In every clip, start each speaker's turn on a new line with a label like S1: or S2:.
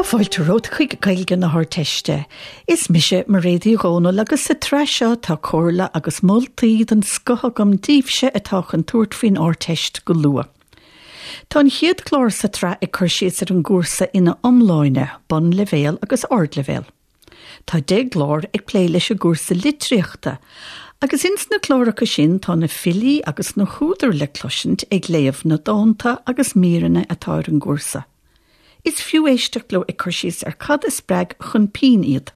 S1: Tá fáilte romhat chuig Gaeilge na hArdteiste. Is mise Mairéad Uí Dhomhnaill agus sa tsraith seo tá comhairle agus moltaí den scoth agam daoibhse atá chun tabhairt faoin Ardteist go luath. Tá an chéad chlár sa tsraith ag cur síos ar an gcúrsa ina iomláine, bunleibhéal agus ardleibhéal. Tá 10 gclár ag plé leis an gcúrsa litríochta, agus ins na cláracha sin tá na filí agus na húdair le cloisint ag léamh na dánta agus míreanna atá ar an gcúrsa. Is fiú éisteacht leo ag cur síos ar cad a spreag chun pinn iad.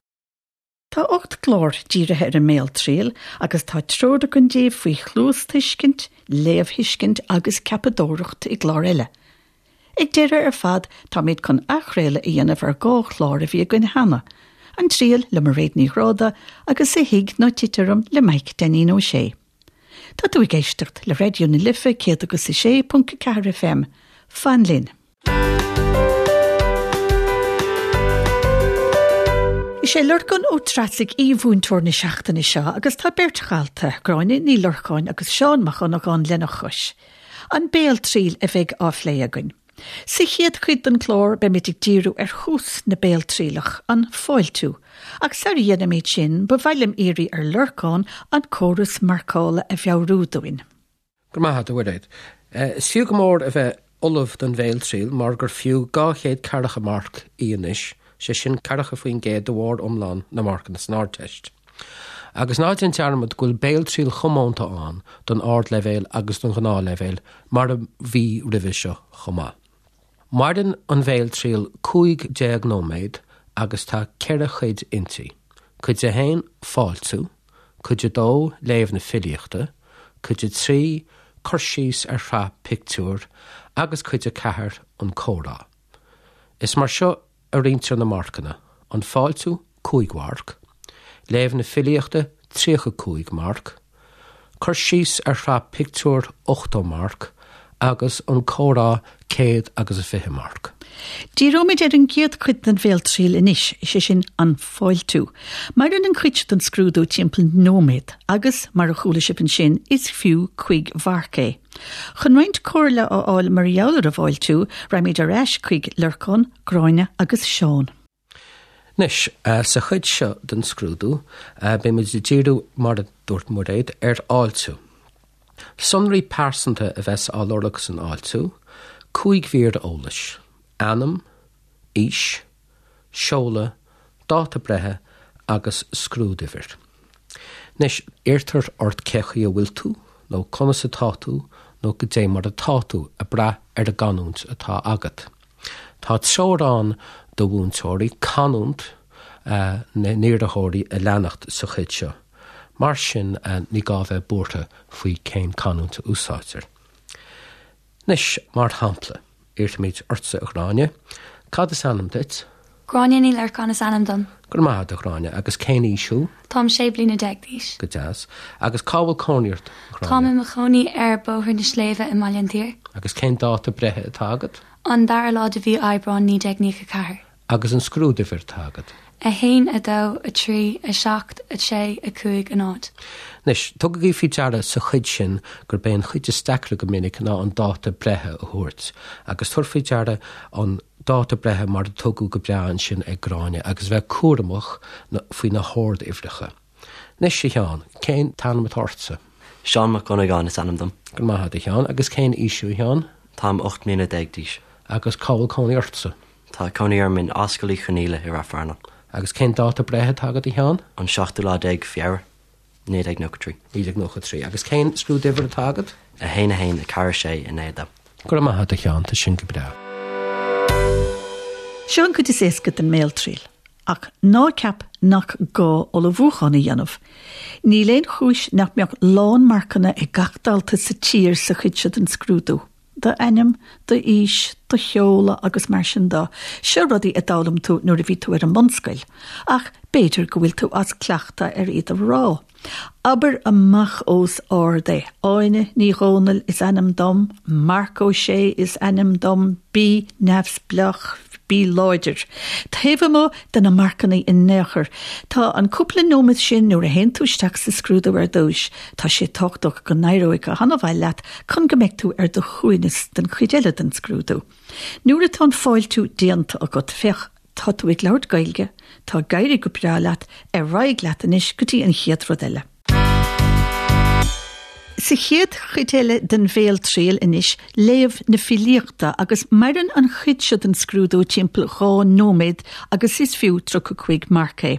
S1: Tá 8 gclár dírithe ar an mbéaltriail agus tá treoir againn daoibh faoi chluastuiscint, léamhthuiscint agus ceapadóireacht i gclár eile. Ag deireadh ar fad táimid chun athchraoladh a dhéanamh ar 2 chlár a bhí againn cheana, An Triail le Mairéad Ní Ghráda agus A Thig Ná Tit Orm le Maidhc Dainín Ó Sé. Tá tú ag éisteacht le Raidió na Life 106.4 FM. Fan linn! Is é Lorcán Ó Treasaigh aoi-mhúinteoir na seachtaine seo agus tá beirt dhalta, Gráinne Ní Lorcáin agus Seán Mac Dhonnagáin lena chois. An béaltriail a bheidh á phlé againn. Sa chéad chuid den chlár beimid ag díriú ar thús na béaltrialach, an fáiltiú. Ach sar a dhéanaimid sin, ba mhaith liom iarraidh ar Lorcán an córas marcála a mheabhrú dúinn.
S2: Go raibh maith agat, a Mhairéad. Is fiú go mór a bheith ullamh don bhéaltriail mar gur fiú 240 marc í anois, sé sin 40% de bharr iomlán na marcanna san Ardteist. Agus ná déan dearmad go bhfuil béaltriail chomónta ann don ardleibhéal agus don ghnáthleibhéal, mar a bhí roimhe seo chomh maith. Maireann an bhéaltriail 15 nóiméad agus tá ceithre chuid inti, Cuid 1, Fáiltiú, Cuid 2, Léamh na filíochta, Cuid 3, Cur síos ar shraith pictiúr, agus Cuid 4, An comhrá. Is mar seo a roinntear na marcanna, an fáiltiú, 5 mharc, léamh na filíochta, 35 marc, cur síos ar shraith pictiúr, 80 marc, agus an comhrá, 120 marc.
S1: Díreoimid ar an gcéad chuid den bhéaltriail anois, is é sin an fáiltiú. Maireann an chuid seo den scrúdú timpeall nóiméad agus, mar a chuala sibh ansin, is fiú cuig mharc é. Chun roinnt comhairle a fháil mar gheall ar an bhfáiltiú, raghaimid ar ais chuig Lorcán, Gráinne agus Seán.
S2: Anois, sa chuid seo den scrúdú, beimid ag díriú, mar a dúirt Muiréad, ar fháiltiú. Sonraí pearsanta a bheas á lorg san fháiltiú, 5 mhír eolais, ainm, aois, seoladh, dáta breithe agus scrúduimhir. Anois, iarrtar ort cé chaoi a bhfuil tú, nó conas atá tú, nó goidé mar atá tú, ag brath ar an gcanúint atá agat. Tá treoir ann do mhúinteoirí canúint na n-iarrthóirí a leanacht sa chuid seo. Mar sin, ní gá bheith buartha faoi cén canúint a úsáidtear. Anois, mar shampla, iarrfaimid ortsa, a Ghráinne, cad is ainm duit?
S3: Gráinne Ní Lorcáin is ainm dom.
S2: Go raibh maith agat, a Ghráinne. Agus cén aois thú?
S3: Táim 16 bliana d'aois.
S2: Go deas. Agus cá bhfuil cónaí ort, a Ghráinne?
S3: Táim i mo chónaí ar Bóthar na Sléibhe i mBaile an tSaoir.
S2: Agus cén dáta breithe atá agat?
S3: An dara lá de mhí Aibreáin 1994.
S2: Agus an scrúduimhir atá agat?
S3: 1, 2, 3, 7, 6, 5, 0.
S2: Anois, tugaigí faoi deara sa chuid sin gurb é an chuid is deacra go minic ná an dáta breithe a thabhairt. Agus tabhair faoi deara an dáta breithe mar a tugadh go breá ansin ag Gráinne agus bheith cúramach faoi na horduimhreacha. Anois, a Sheáin, cén t-ainm atá ortsa?
S4: Seán Mac Dhonnagáin is ainm dom.
S2: Go raibh maith agat, a Sheáin. Agus cén aois thú, a Sheáin?
S4: Táim 18 mbliana d'aois.
S2: Agus cá bhfuil cónaí ortsa?
S4: Tá cónaí orm in Ascaill Uí Chonaola i Rath Fearnáin.
S2: Agus cén dáta breithe atá agat, a Sheáin?
S4: An seachtú lá déag Feabhra, 1993.
S2: 1993. Agus cén scrúduimhir atá agat?
S4: 1 1 4 6 9 2.
S2: Go raibh maith agat, a Sheáin, tá sin go breá.
S1: Seo an chuid is éasca den mbéaltriail. Ach ná ceap nach gá ullmhúchán a dhéanamh. Níl aon chúis nach mbeadh lán-marcanna ag gach dalta sa tír sa chuid seo den scrúdú. D'ainm, d'aois, do sheoladh agus mar sin de, seo rudaí a d'fhoghlaim tú nuair a bhí tú ar an mbunscoil, ach b'fhéidir go bhfuil tú as cleachtadh ar iad a rá. Abair amach os ard é, Áine Ní Dhomhnaill is ainm dom, Marc Ó Sé is ainm dom, bí neamhspleách, bí láidir. Taobh amuigh de na marcanna in aon chor, tá an cúpla nóiméad sin nuair a théann tú isteach sa scrúdú ar dtúis, tá sé tábhachtach go n-éireoidh go han-mhaith leat chun go mbeidh tú ar do shuaimhneas don chuid eile den scrúdú. Nuair atá an fáiltiú déanta agat, féach. Tá tú ag labhairt Gaeilge, tá ag éirí go breá leat, ar aghaidh leat anois go dtí an chéad rud eile. Sa chéad chuid eile den bhéaltriail anois, léamh na filíochta agus maireann an chuid seo den scrúdú timpeall 2 nóiméad agus is fiú 35 marc é.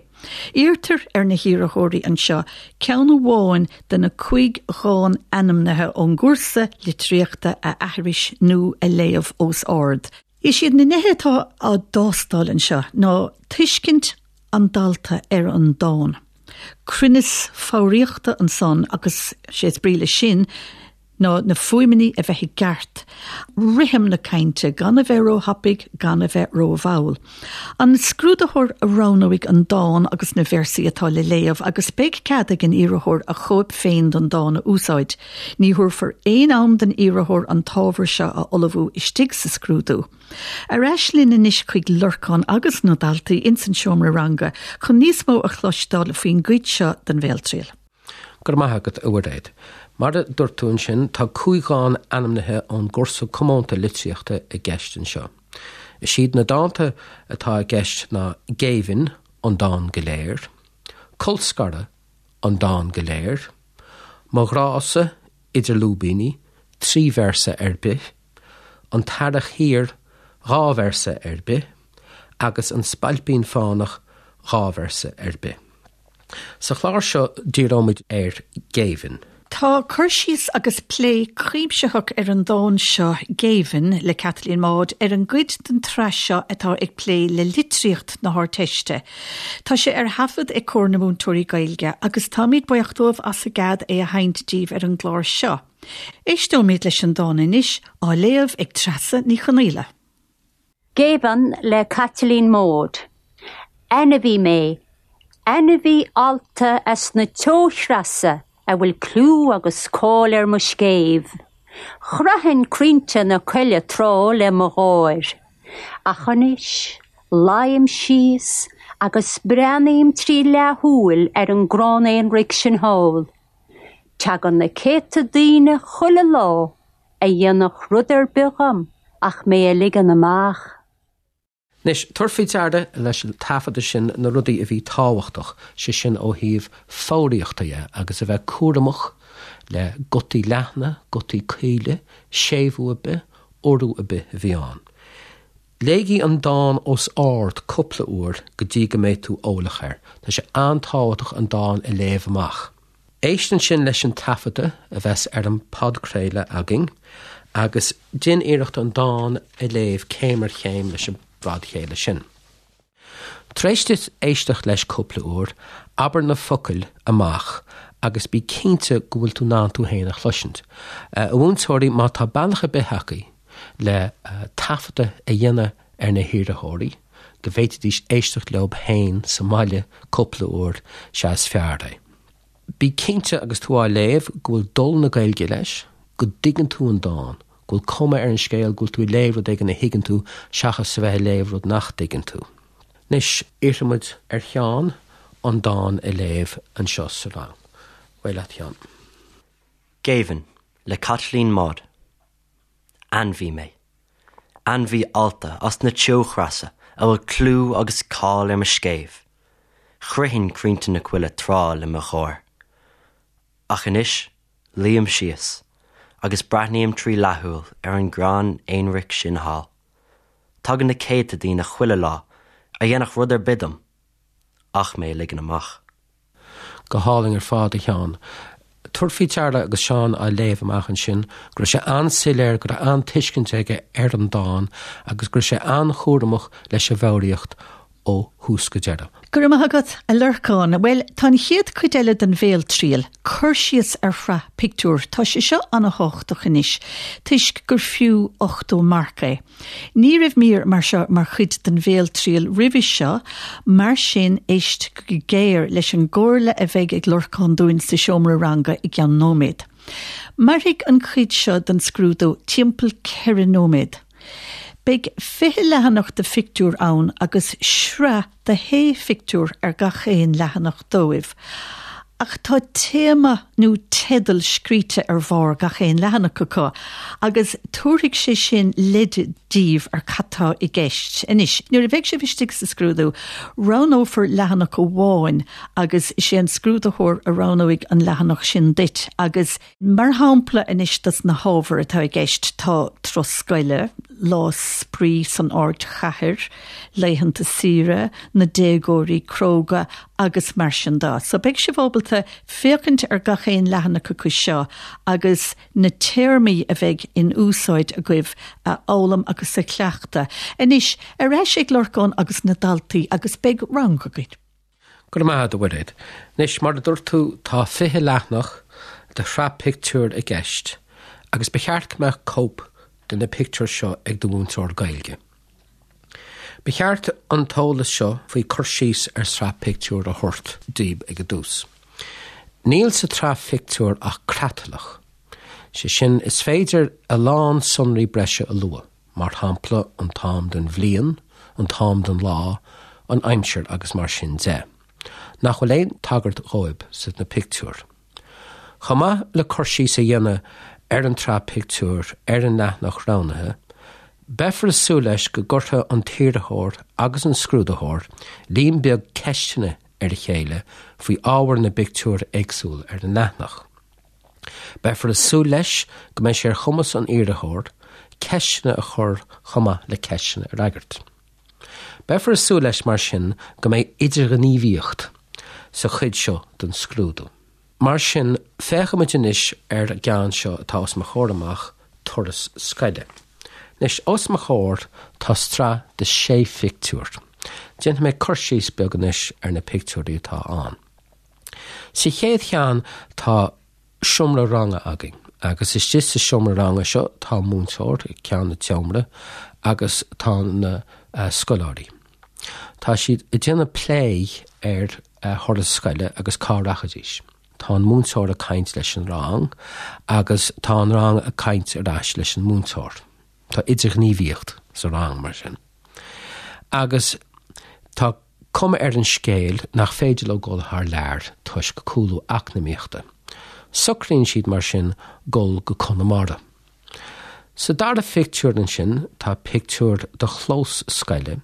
S1: Iarrtar ar na hiarrthóirí anseo ceann amháin de na cúig dhán ainmnithe ón gcúrsa litríochta a aithris nó a léamh os ard. Is iad na nithe atá á dtástáil anseo ná tuiscint an dalta ar an dán, cruinneas foghraíochta ansan agus sé is brí leis sin ná na fuaimeanna a bheith i gceart, rithim na cainte, gan a bheith róthapaidh, gan a bheith rómhall. An scrúdaitheoir a roghnóidh an dán agus na véarsaí atá le léamh agus beidh cead ag an iarrthóir a chóip féin den dán a úsáid. Ní thabharfar aon am don iarrthóir an t-ábhar seo a ullmhú istigh sa scrúdú. Ar ais linn anois chuig Lorcán agus na daltaí ins an seomra ranga chun níos mó a chloisteáil faoin gcuid seo den bhéaltriail.
S2: Go raibh maith agat, a Mhuiréad. Mar a dúirt tú ansin, tá cúig dhán ainmnithe ón gcúrsa comónta litríochta i gceist anseo. Is iad na dánta atá i gceist ná Géibhinn, an dán go léir, Colscaradh, an dán go léir, Mo ghrá-sa, idir lúibíní, 3 véarsa ar bith, An tEarrach Thiar, 2 véarsa ar bith, agus An Spailpín Fánach, 2 véarsa ar bith. Sa chlár seo díreoimid ar Géibhinn.
S1: Tá cur síos agus plé cuimsitheach ar an dán seo, Géibhinn, le Caitlín Maude, ar an gcuid den tsraith seo atá ag plé le litríocht na hArdteiste. Tá sé ar thaifead ag Comhar na Múinteoirí Gaeilge agus táimid buíoch dóibh as a gcead é a sheinnt daoibh ar an gclár seo. Éisteoimid leis an dán anois, á léamh ag Treasa Ní Chonaola.
S5: Géibheann le Caitlín Maude. Ainmhí mé, ainmhí allta as na teochreasa a bhfuil clú agus cáil ar mo scéimh. Chroithfinn crainnte na coille tráth le mo gháir. Ach anois, luím síos agus breathnaím trí leathshúil ar an gcrann aonraic sin thall. Tagann na céadta daoine chuile lá a dhéanfadh rud ar bith dhom ach mé a ligean amach.
S2: Anois, tabhair faoi deara leis an taifeadadh sin na rudaí a bhí tábhachtach, sé sin ó thaobh foghraíochta dhe, agus a bheith cúramach le gutaí leathna, gutaí caoile, séimhiú ar bith, urú ar bith a bhí ann. Léigí an dán os ard cúpla uair go dtí go mbeidh tú eolach air. Tá sé an-tábhachtach an dán a léamh amach. Éist ansin leis an taifeadadh a bheas ar an bpodchraoladh againn agus déan iarracht an dán a léamh céim ar chéim leis an bpodchraoladh sin. Tar éis duit éisteacht leis cúpla uair, abair na focail amach agus bí cinnte go bhfuil tú in ann tú féin a chloisint. A mhúinteoirí, má tá bealach ar bith agaibh le taifeadadh a dhéanamh ar na hiarrthóirí, go bhféadfaidís éisteacht leo féin sa mbaile cúpla uair, sea is fearr é. Bí cinnte agus tú á léamh go bhfuil dul na Gaeilge leis, go dtuigeann tú an dán, go bhfuil cuma ar an scéal go bhfuil tú ag léamh rud éigin a thuigeann tú seachas a bheith ag léamh rud nach dtuigeann tú. Anois, iarrfaidh muid ar Sheán an dán a léamh anseo sa rang. Ar aghaidh leat, Sheán.
S4: Géibheann, le Caitlín Maude. Ainmhí mé. Ainmhí allta as na teochreasa a bhfuil clú agus cáil ar mo scéimh. Chroithfinn crainnte na coille tráth le mo gháir. Ach anois, luím síos agus breathnaím trí leathshúil ar an gcrann aonraic sin thall. Tagann na céadta daoine chuile lá a dhéanfadh rud ar bith dom ach mé a ligean amach.
S2: Go hálainn ar fad, a Sheáin. Tabhair faoi deara agus Seán á léamh amach ansin go raibh sé an-soiléir, go raibh an-tuiscint aige ar an dán agus go raibh sé an-chúramach leis an bhfoghraíocht ó thús go deireadh.
S1: Go raibh maith agat, a Lorcáin. Bhuel, tá an chéad chuid eile den bhéaltriail, cur síos ar shraith pictiúr, tá sé seo an-thábhachtach anois, toisc gur fiú 80 marc é. Ní raibh mír mar seo mar chuid den bhéaltriail roimhe seo, mar sin éist go géar leis an gcomhairle a bheidh ag Lorcán dúinn sa seomra ranga i gceann nóiméad. Mairfidh an chuid seo den scrúdú timpeall 4 nóiméad. Beidh 20 leathanach de phictiúir ann agus sraith de shé phictiúr ar gach aon leathanach dóibh. Ach tá téama nó teideal scríte ar bharr gach aon leathanach acu agus tabharfaidh sé sin leid daoibh ar cad tá i gceist. Anois, nuair a bheidh sibh istigh sa scrúdú, roghnófar leathanach amháin agus is é an scrúdaitheoir a roghnóidh an leathanach sin duit agus Mar shampla anois dos na hábhair atá i gceist tá turas scoile, lá spraoi san ardchathair, laethanta saoire, na déagóirí cróga agus mar sin de. So beidh sibh ábalta féachaint ar gach aon leathanach acu seo agus na téarmaí a bheidh in úsáid agaibh a fhoghlaim agus a chleachtadh. Anois, ar ais ag Lorcán agus na daltaí agus beidh rang againn.
S2: Go raibh maith agat, a Mhuiréad. Anois, mar a dúirt tú, tá 20 leathanach de shraith pictiúr i gceist agus ba cheart go mbeadh cóip de na pictiúir seo ag do mhúinteoir Gaeilge. Ba cheart an t-eolas seo faoi cur síos ar sraith pictiúr a thabhairt daoib ag an dtús. Níl sa tsraith phictiúr ach creatlach. Sé sin, is féidir a lán sonraí breise a lua. mar shampla an t-am den bhliain, an t-am den lá, an aimsir agus mar sin de, nach bhfuil aon tagairt dhóibh sna pictiúir. Chomh maith le cur síos a dhéanamh ar an tsraith pictiúr ar an leathanach roghnaithe, beifear ag súil leis go gcuirfidh an t-iarrthóir agus an scrúdaitheoir líon beag ceisteanna ar a chéile faoi ábhar na bpictiúr éagsúil ar an leathanach. Beifear ag súil leis go mbeidh sé ar chumas an iarrthóir ceisteanna a chur chomh maith le ceisteanna a fhreagairt. Beifear ag súil leis mar sin go mbeidh idirghníomhaíocht sa chuid seo den scrúdú. Mar sin, féachfaimid anois ar an gceann seo atá os mo chomhair amach, turas scoile. Anois, os mo chomhair tá sraith de shé phictiúr. Déanfaidh mé cur síos beag anois ar na pictiúirí atá ann. Sa chéad cheann tá seomra ranga againn agus istigh sa seomra ranga seo tá múinteoir ag ceann an tseomra agus tá na scoláirí. Tá siad ag déanamh plé ar thuras scoile agus cá rachaidís. Tá an múinteoir ag caint leis an rang agus tá an rang ag caint ar ais leis an múinteoir. Tá idirghníomhaíocht sa rang mar sin. Agus tá cuma ar an scéal nach féidir leo dul thar lear toisc cúlú eacnamaíochta. Socraíonn siad mar sin dul go Conamara. Sa dara phictiúr ansin tá pictiúr de chlós scoile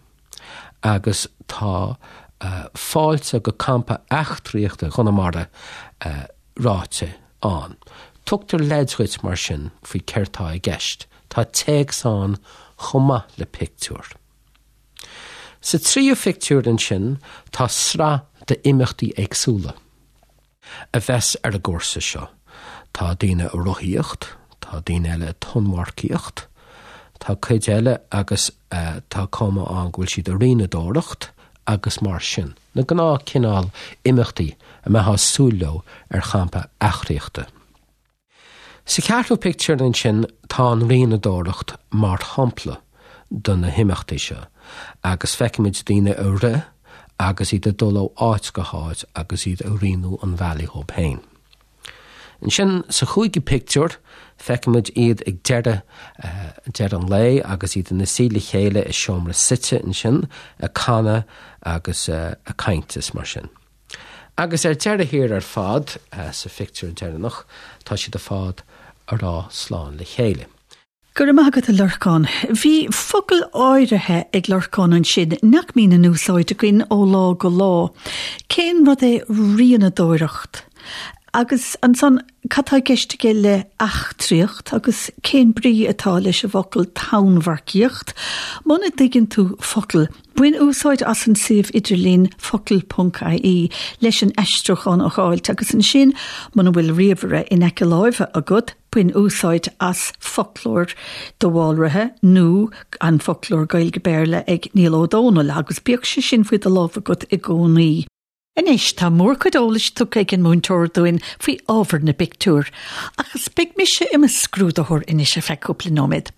S2: agus tá fáilte go campa eachtraíochta Chonamara ráite ann. Tugtar leid dhuit mar sin faoi céard tá i gceist. Tá téacs ann chomh maith le pictiúr. Sa tríú phictiúr ansin tá sraith d'imeachtaí éagsúla a bheas ar an gcúrsa seo. Tá daoine ag rothaíocht, tá daoine eile ag tonnmharcaíocht, tá cuid eile agus tá cuma ann go bhfuil siad ag rianadóireacht agus mar sin. Na gnáth cineál imeachtaí a mbeifeá ag súil leo ar champa eachtraíochta. Sa cheathrú pictiúr ansin tá an rianadóireacht mar shampla de na himeachtaí seo agus feicimid daoine ag rith agus iad ag dul ó áit go háit agus iad ag rianú an bhealaigh dhóibh féin. Ansin sa chúigiú pictiúr feicimid iad ag deireadh deireadh an lae agus iad ina suí le chéile i seomra suite ansin ag canadh agus ag caint is mar sin. Agus ar deireadh thiar ar fad, sa phictiúr deireanach, tá siad ar fad ag rá slán le chéile.
S1: Go raibh maith agat, a Lorcáin. Bhí focail áirithe ag Lorcán ansin nach mbíonn in úsáid againn ó lá go lá. Cén rud é rianadóireacht? Agus ansan, cad tá i gceist aige le eachtraíocht agus cén brí atá leis an bhfocal tonnmharcaíocht? Muna dtuigeann tú focal, Bain úsáid as an suíomh idirlín focal.ie leis an aistriúchán a fháilt agus ansin, muna bhfuil ríomhaire in aice láimhe agat, bain úsáid as foclóir de Bhálraithe nó an Foclóir Gaeilge-Béarla ag Niall Ó Dónaill agus bíodh sé sin faoi do lámh agat i gcónaí. Anois, tá mórchuid eolais tugtha ag an múinteoir dúinn faoi ábhar na bpictiúr, agus beidh mise i mo scrúdaitheoir anois ar feadh cúpla nóiméad.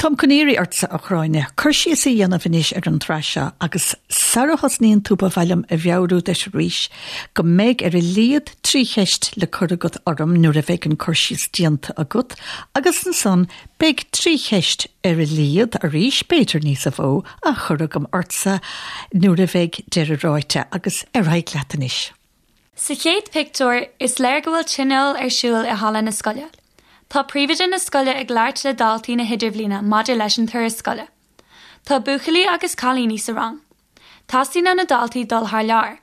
S1: Táim chun iarraidh ortsa, a Ghráinne, cur síos a dhéanamh anois ar an tsraith seo, agus sara thosnaíonn tú ba mhaith liom a mheabhrú duit arís go mbeidh ar a laghad 3 cheist le cur agat orm nuair a bheidh an cur síos déanta agat, agus ansan beidh 3 cheist ar a laghad, arís, b'fhéidir níosa mhó, á chur agam ortsa nuair a bheidh deireadh ráite agus ar aghaidh leat anois.
S3: Sa chéad pictiúr, is léir go bhfuil tionól ar siúl i halla na scoile. Tá príomhoide na scoile ag labhairt le daltaí na hidirbhliana maidir leis an turas scoile. Tá buachaillí agus cailíní sa rang. Teastaíonn ó na daltaí dul thar lear.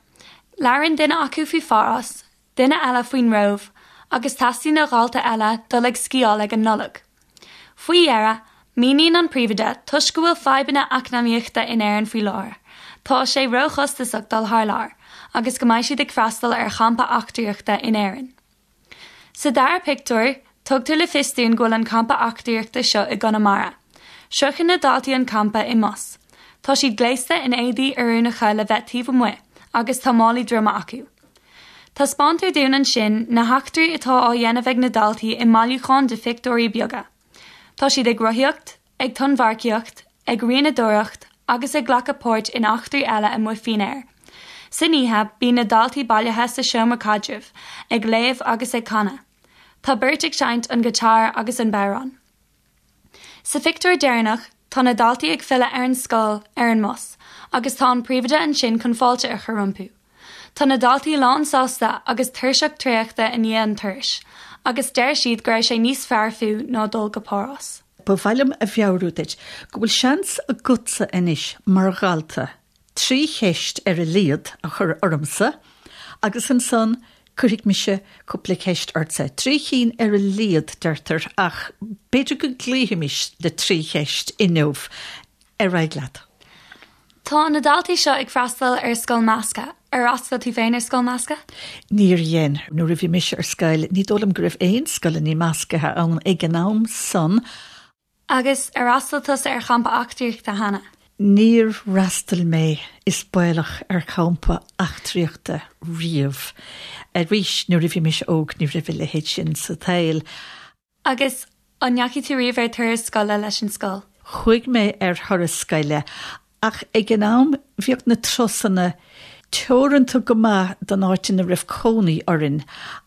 S3: Labhrann duine acu faoi Pháras, duine eile faoin Róimh agus teastaíonn ó dhalta eile dul ag sciáil ag an Nollaig. Faoi dheireadh, míníonn an príomhoide, toisc go bhfuil fadhbanna eacnamaíochta in Éirinn faoi láthair, tá sé róchostasach dul thar lear agus go mbeidh siad ag freastal ar champa eachtraíochta in Éirinn. Sa dara pictiúr, tugtar le fios dúinn go bhfuil an campa eachtraíochta seo i gConamara. Sroicheann na daltaí an campa i mbus. Tá siad gléasta in éadaí oiriúnacha le bheith taobh amuigh agus tá málaí droma acu. Taispeántar dúinn ansin na heachtraí atá á dhéanamh ag na daltaí i mbailiúchán de phictiúirí beaga. Tá siad ag rothaíocht, ag tonnmharcaíocht, ag rianadóireacht agus ag glacadh páirt in eachtraí eile amuigh faoin aer. San oíche, bíonn na daltaí bailithe sa seomra caidrimh, ag léamh agus ag canadh. Tá beirt ag seinnt an guitar agus an bodhrán. Sa phictiúr deireanach, tá na daltaí ag filleadh ar an scoil ar an mbus agus tá an príomhoide ansin chun fáilte a chur rompu. Tá na daltaí lánsásta agus tuirseach traochta i ndiaidh an turais agus deir siad go raibh sé níos fearr fiú ná dul go Páras.
S1: Ba mhaith liom a mheabhrú duit go bhfuil seans agatsa anois mar dhalta 3 cheist ar a laghad a chur ormsa agus ansan cuirfidh mise cúpla ceist ortsa. 3 chinn ar a laghad, deirtear, ach b'fhéidir go gcloífimis le 3 cheist inniu. Ar aghaidh leat.
S3: Tá na daltaí seo ag freastal ar scoil measctha. Ar fhreastail tú féin ar scoil measctha?
S1: Níor dhein. Nuair a bhí mise ar scoil, ní dóigh liom go raibh aon scoileanna measctha ann ag an am san.
S3: Agus ar fhreastail tusa ar champa eachtraíochta cheana?
S1: Níor fhreastail mé, is baolach, ar champa eachtraíochta riamh. Arís, nuair a bhí mise óg ní raibh a leithéid sin sa tsaol.
S3: Agus an ndeachaigh tú riamh ar turas scoile leis an scoil?
S1: Chuaigh mé ar thuras scoile Ach ag an am bhíodh na turasanna teoranta go maith don áit ina raibh cónaí orainn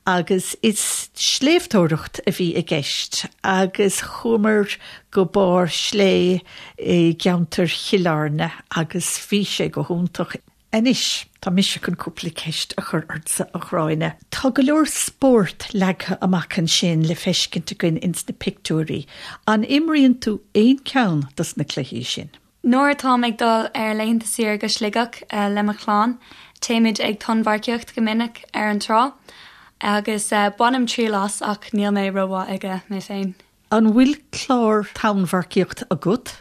S1: agus is sléibhteoireacht a bhí i gceist agus chuamar go barr slé i gceantar Chill Airne agus bhí sé go hiontach. Anois, tá mise chun cúpla ceist a chur ortsa, a Ghráinne. Tá go leor spórt leagtha amach ansin le feiscint againn ins na pictiúirí. An imríonn tú aon cheann dos na cluichí sin?
S3: Nuair atáim ag dul ar laethanta saoire go Sligeach le mo chlann, téimid ag tonnmharcaíocht go minic ar an trá agus bainim triail as ach níl mé rómhaith aige mé féin.
S1: An bhfuil clár tonnmharcaíocht agat?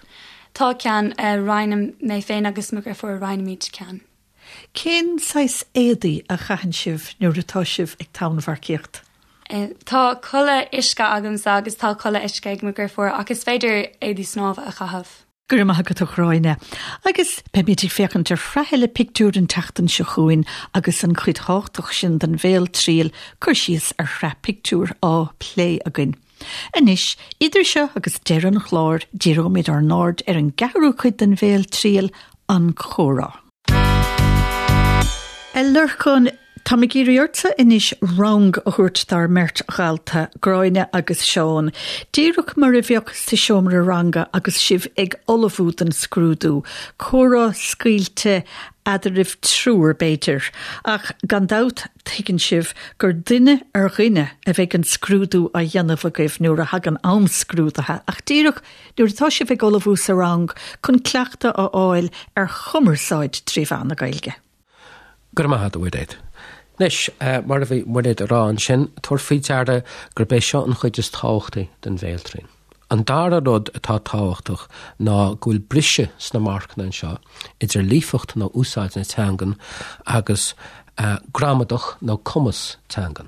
S3: Tá ceann, roinnim, mé féin agus mo dheirfiúr, roinnimid ceann.
S1: Cén saghas éadaí a chaitheann sibh nuair atá sibh ag tonnmharcaíocht?
S3: Tá culaith uisce agamsa agus tá culaith uisce ag mo dheirfiúr ach is féidir éadaí snámha a chaitheamh.
S1: Go raibh maith agat a Ghráinne. Agus beimid ag féachaint ar shraith eile pictiúr an tseachtain seo chugainn agus an chuid thábhachtach sin den bhéaltriail, cur síos ar shraith pictiúr, á plé againn. Anois, idir seo agus deireadh an chláir, díreoimid ár n-aird ar an gceathrú cuid den bhéaltriail, an comhrá. A Lorcáin, táim ag iarraidh ortsa anois rang a thabhairt dár mbeirt dhalta, Gráinne agus Seán, díreach mar a bheadh sa seomra ranga agus sibh ag ullmhú don scrúdú, comhrá scaoilte eadraibh triúr, b'fhéidir, ach gan dabht tuigeann sibh gur duine ar dhuine a bheidh an scrúdú á dhéanamh agaibh nuair a thagann am scrúdaithe, ach díreach nuair atá sibh ag ullmhú sa rang chun cleachtadh a fháil ar chumarsáid trí mheán na Gaeilge.
S2: Go raibh maith agat, a Mhuiréad. Anois, mar a bhí Muiréad ag rá ansin, tabhair faoi deara gurb é seo an chuid is tábhachtaí den bhéaltriail. An dara rud atá tábhachtach ná go bhfuil briseadh sna marcanna anseo idir líofacht nó úsáid na teangan agus gramadach nó cumas teangan.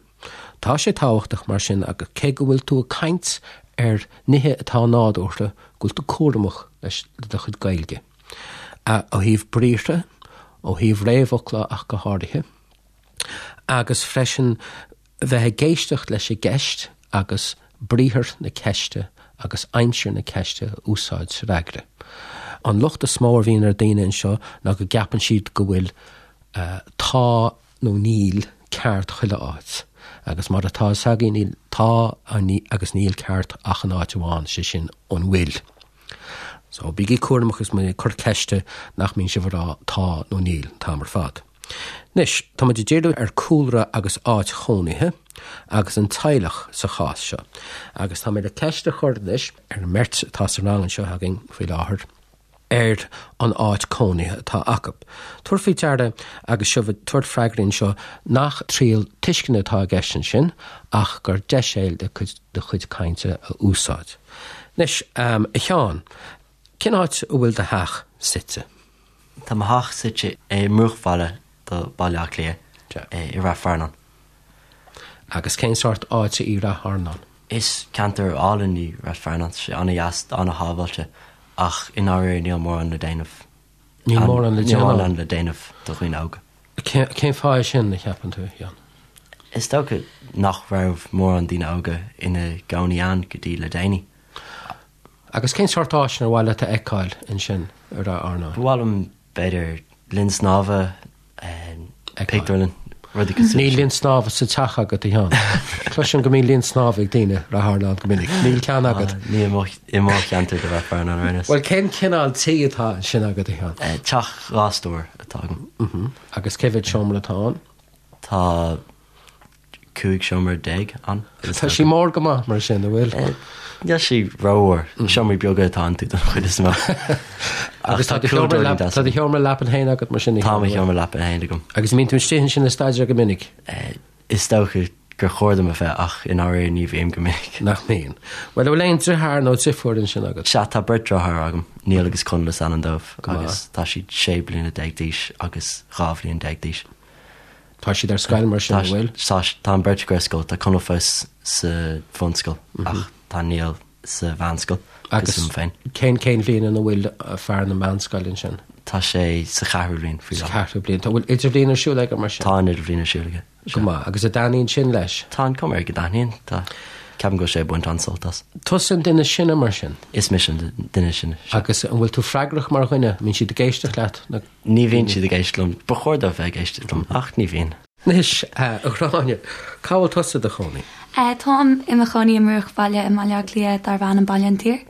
S2: Tá sé tábhachtach mar sin agus cé go bhfuil tú ag caint ar nithe atá nádúrtha, go bhfuil tú cúramach leis le do chuid Gaeilge. Ó thaobh briathra, ó thaobh réamhfhocla ach go háirithe, agus freisin bheith ag éisteacht leis an gceist agus briathar na ceiste agus aimsir na ceiste a úsáid sa fhreagra. An locht is mó a bhíonn ar daoine anseo ná go gceapann siad go bhfuil tá nó níl ceart chuile áit, agus mar atá a fhios againn níl tá agus níl ceart ach in áit amháin, sé sin an bhfuil. So bígí cúramach is muid ag cur ceiste nach mbíonn sibh ag rá tá nó níl an t-am ar fad. Anois, tá muid ag díriú ar cúlra agus áit chónaithe agus an teaghlach sa chás seo. Agus tá mé le ceist a chur anois ar an mbeirt atá sa rang anseo againn faoi láthair ar an áit cónaithe atá acu. Tabhair faoi deara agus sibh ag tabhairt freagraí anseo nach triail tuisceana atá i gceist ansin ach gur deis é le do chuid cainte a úsáid. Anois, a Sheáin, cén áit a bhfuil do theach suite?
S4: Tá mo theach suite i mbruachbhaile do Baile Átha Cliath, i Rath Fearnáin.
S2: Agus cén sórt áite í Rath Fearnáin?
S4: Is ceantar álainn í Rath Fearnáin, tá sé an-dheas, an-shábháilte, ach i ndáiríre níl mórán le déanamh.
S2: Níl mórán le déanamh?
S4: Níl mórán le déanamh do dhaoine óga.
S2: Cén fáth é sin, a cheapann tú, a Sheáin?
S4: Is dócha nach raibh mórán daoine óga ina gcónaí ann go dtí le déanaí.
S2: Agus cén sórt áiseanna ar mhaith leat a fheiceáil ansin i Rath Fhearnáin?
S4: Ba mhaith liom, b'fhéidir, linn snámha, pictiúrlann, rudaí cosúil
S2: Níl linn snámha sa teach agat, a Sheáin. Cloisim go mbíonn linn snámha ag daoine i Rath Fhearnáin go minic. Níl ceann agat.
S4: Ní i mo cheantar de Rath Fearnáin ar aon nós.
S2: Bhuel, cén cineál tí atá ansin agat, a
S4: Sheáin? Teach 2 stór atá agam.
S2: Agus cé mhéad seomra atá ann?
S4: Tá 15 seomra ann.
S2: Tá sí mór go maith mar sin, an bhfuil?
S4: Níl sí rómhór. Seomraí beaga atá iontu don chuid is mó.
S2: Agus tá do sheomra leapan féin agat mar sin?
S4: Tá mo sheomra leapan féin agam.
S2: Agus an mbíonn tú istigh ansin ag staidéar go minic?
S4: Is dócha gur chóir dom a bheith ach i ndáiríre ní bhím go minic.
S2: Nach mbíonn. Bhuel, an bhfuil aon driotháir nó driofúr ansin agat?
S4: Sea, tá beirt driotháir agam, Niall agus Conall is ainm dóibh agus tá siad 16 bliana d'aois agus 12 bhliain d'aois.
S2: Tá siad ar scoil mar sin, an bhfuil?
S4: Tá, tá an bheirt acu ar scoil. Tá Conall fós sa bhunscoil ach tá Niall sa mheánscoil
S2: Agus
S4: cosúil liom féin.
S2: cén cén bhliain ina bhfuil fear na meánscoile ansin?
S4: Tá sé sa cheathrú bhliain faoi
S2: Sa láthair. cheathrú bliain. Tá bhfuil idirbhliain ar siúl aige mar sin?
S4: Tá an idirbhliain ar siúl aige.
S2: Go maith. Agus an dtaitníonn sin leis?
S4: Tá an cuma air go dtaitníonn. Tá. Ceapaim go bhfuil sé ag baint an-sult as.
S2: Tusa an duine is sine mar sin?
S4: Is mise an duine is sine,
S2: sea. Agus an bhfuil tú freagrach mar dhuine? An mbíonn siad ag éisteacht leat?
S4: Nó. Ní bhíonn siad ag éisteacht liom. Ba chóir dóibh bheith ag éisteacht liom, ach ní bhíonn.
S2: Anois, a Ghráinne, cá bhfuil tusa i do chónaí?
S3: Táim i mo chónaí i mbruachbhaile i mBaile Átha Cliath darb ainm Baile an tSaoir.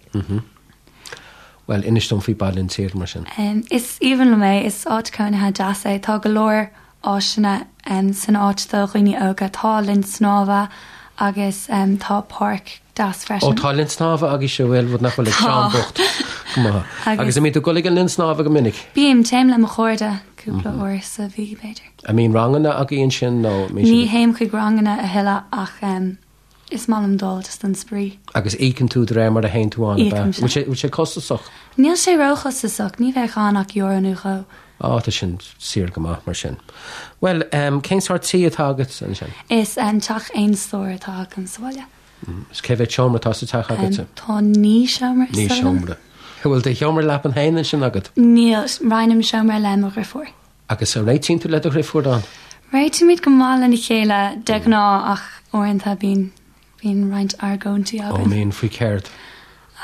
S2: Bhuel, inis dom faoi Baile an tSaoir, mar sin.
S3: Is aoibhinn liom é. Is áit cónaithe deas é. Tá go leor áiseanna san áit do dhaoine óga. Tá linn snámha agus tá páirc deas
S2: freisin. Ó, tá linn snámha agaibhse, bhuel, rud nach bhfuil ag Seán bocht. Go maith. Agus an mbíonn tú ag dul ag an linn snámha go minic?
S3: Bím, téim le mo chairde cúpla uair sa mhí, b'fhéidir.
S2: An mbíonn ranganna agaibh ansin nó
S3: an mbíonn siad Ní théim chuig ranganna a thuilleadh ach is maith liom dul just don spraoi.
S2: Agus íocann tú de réir mar a théann tú ann, ab ea?
S3: Íocaim, sea.
S2: Bhfuil sé costasach?
S3: Níl sé róchostasach, ní bheadh ann ach euro nó dhó.
S2: Á, tá sin saor go maith mar sin. Bhuel, cén sórt tí atá agat ansin?
S3: Is teach aon stór atá agam sa bhaile.
S2: Is cé mhéad seomra atá sa teach agatsa?
S3: Tá 9 seomra
S2: is dóigh liom. 9 seomra. Bhfuil do sheomra leapan féin ansin agat?
S3: Níl, roinnim seomra le mo dhriofúr.
S2: Agus an réitíonn tú le do dhriofúr ann?
S3: Réitímid go maith lena chéile de ghnáth ach uaireanta bíonn bíonn roinnt argóintí
S2: againn. Ó mbíonn, faoi céard?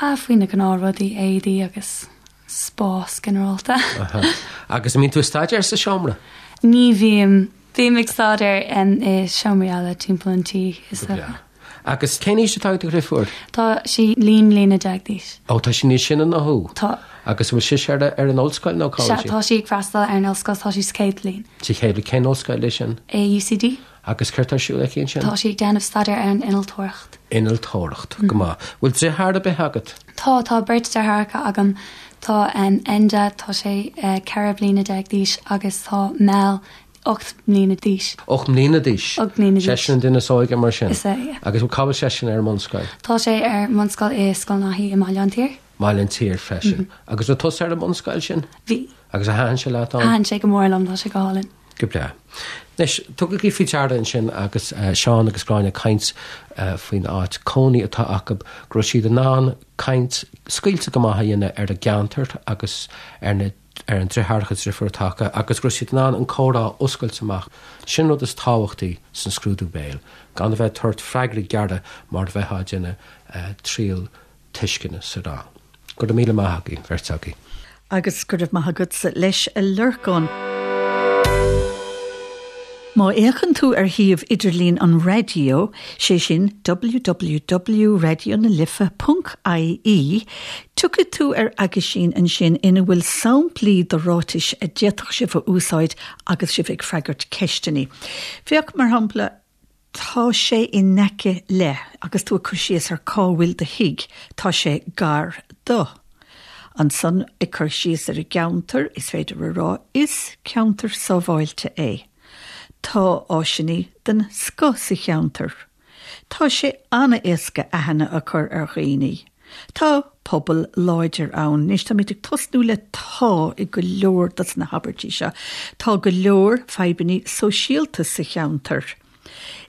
S3: Ah, faoi na gnáthrudaí, éadaí agus spás ginearálta.
S2: Aha. Agus an mbíonn tú ag staidéar sa seomra?
S3: Ní bhím. Bím ag staidéar i seomraí eile timpeall an tí, is dócha.
S2: Agus cén aois atá ag do dhriofúr?
S3: Tá sí 11 mbliana d'aois.
S2: Ó, tá sí níos sine ná thú?
S3: Tá.
S2: Agus an bhfuil sise ar ar an ollscoil nó cá
S3: bhfuil sí? Sea, tá sí ag freastal ar an ollscoil, tá sí sa chéad bhliain.
S2: Sa chéad bhliain. Cén ollscoil é sin?
S3: É UCD.
S2: Agus céard tá ar siúl aici ansin?
S3: Tá sí ag déanamh staidéar ar an innealtóireacht.
S2: Innealtóireacht, go maith. Bhfuil driotháir ar bith agat?
S3: Tá, tá beirt deartháireacha agam. Tá Enda, tá sé 14 bliana d'aois agus tá Mel, 8 mbliana d'aois.
S2: 8 mbliana d'aois?
S3: 8 mbliana d'aois.
S2: Seisean an duine is óige mar sin?
S3: Is ea, yeah.
S2: Agus cá bhfuil seisean ar an mbunscoil?
S3: Tá sé ar an mbunscoil i Scoil Naithí i mBaile an tSaoir.
S2: Baile an tSaoir freisin. Agus raibh tusa ar an mbunscoil sin?
S3: Bhí.
S2: Agus ar thaitin sé leat
S3: ann? Thaitin sé go mór liom, tá sé go hálainn.
S2: Go breá. Anois, tugaigí faoi deara ansin agus Seán agus Gráinne ag caint faoin áit cónaí atá acu, go raibh siad in ann caint scaoilte go maith a dhéanamh ar a gceantar agus ar na ar an driotháireacha driofúr atá acu agus go raibh siad in ann an comhrá a oscailt amach. Sin an rud is tábhachtaí san scrúdú béil, gan a bheith ag tabhairt freagraí gearra mar a bheifeá ag déanamh triail tuisceana sa rang. Go raibh míle maith agaibh, beirt agaibh.
S1: Agus go raibh maith agatsa leis, a Lorcáin. Má fhéachann tú ar shuíomh idirlín an raidió, sé sin www.raidionalife.ie, tiocfaidh tú ar aguisín ansin ina bhfuil samplaí de ráitis a d'fhéadfadh sibh a úsáid agus sibh ag freagairt ceisteanna. Féach, mar shampla, Tá sé in aice le, agus tú ag cur síos ar cá bhfuil do thigh, tá sé gar do. Ansan, ag cur síos ar an gceantar, is féidir a rá, is ceantar sábháilte é. Tá áiseanna den scoth sa cheantar. Tá sé an-éasca aithne a chur ar dhaoine. Tá pobal láidir ann. Anois táimid ag tosnú le 'tá' i go leor dos na habairtí seo. Tá go leor fadhbanna sóisialta sa cheantar.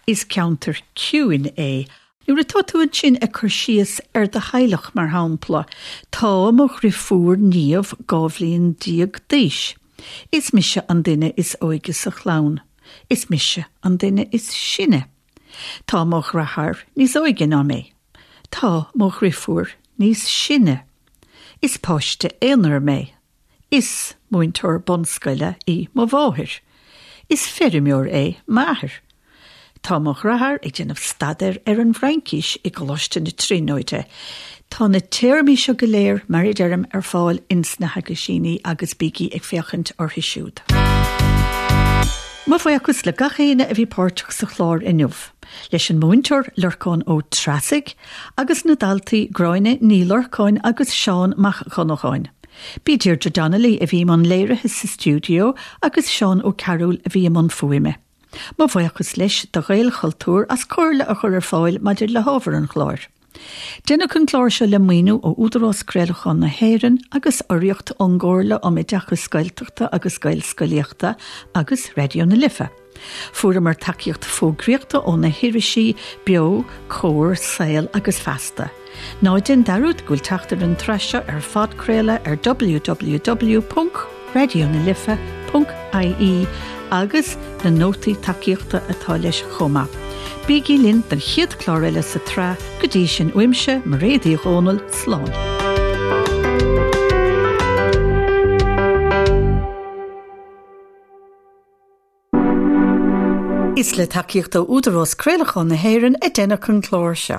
S1: Is ceantar ciúin é. Nuair atá tú ansin ag cur síos ar do theaghlach, mar shampla, Tá mo dhriofúr Niamh 12 bhliain d'aois. Is mise an duine is óige sa chlann. Is mise an duine is sine. Tá mo dhreatháir níos óige ná mé. Tá mo dhriofúr níos sine. Is páiste aonair mé. Is múinteoir bunscoile í mo mháthair. Is feirmeoir é m'athair. Tá mo dhreatháir ag déanamh staidéir ar an bhFraincis i gColáiste na Tríonóide. Tá na téarmaí seo go léir, mar a deirim, ar fáil ins na haguisíní agus bígí ag féachaint orthu siúd. Mo bhuíochas le gach éinne a bhí páirteach sa chlár inniu, leis an múinteoir Lorcán Ó Treasaigh agus na daltaí Gráinne Ní Lorcáin agus Seán Mac Dhonnacháin. B'í Deirdre Donnelly a bhí i mbun léirithe sa stiúideo agus Seán Ó Cearúil a bhí i mbun fuaime. Mo bhuíochas leis do Ghaelchultúr as comhairle a chur ar fáil maidir le hábhar an chláir. Deineadh an clár seo le maoiniú ó Údarás Craolacháin na hÉireann agus urraíocht ón gComhairle um Oideachas Gaeltachta agus Gaelscolaíochta agus Raidió na Life. Fuaireamar tacaíocht fógraíochta ó na hirisí Beo, Comhar, Saol agus Feasta. Ná déan dearúd go bhfuil teacht ar an tsraith seo ar phodchraoladh ar www.raidionalife.ie agus na nótaí tacaíochta atá leis chomh maith. Bígí linn don chéad chlár eile sa tsraith, go dtí sin uaimse, Mairéad Uí Dhomhnaill, slán. Is le tacaíocht ó Údarás Craolacháin na hÉireann a deineadh an clár seo.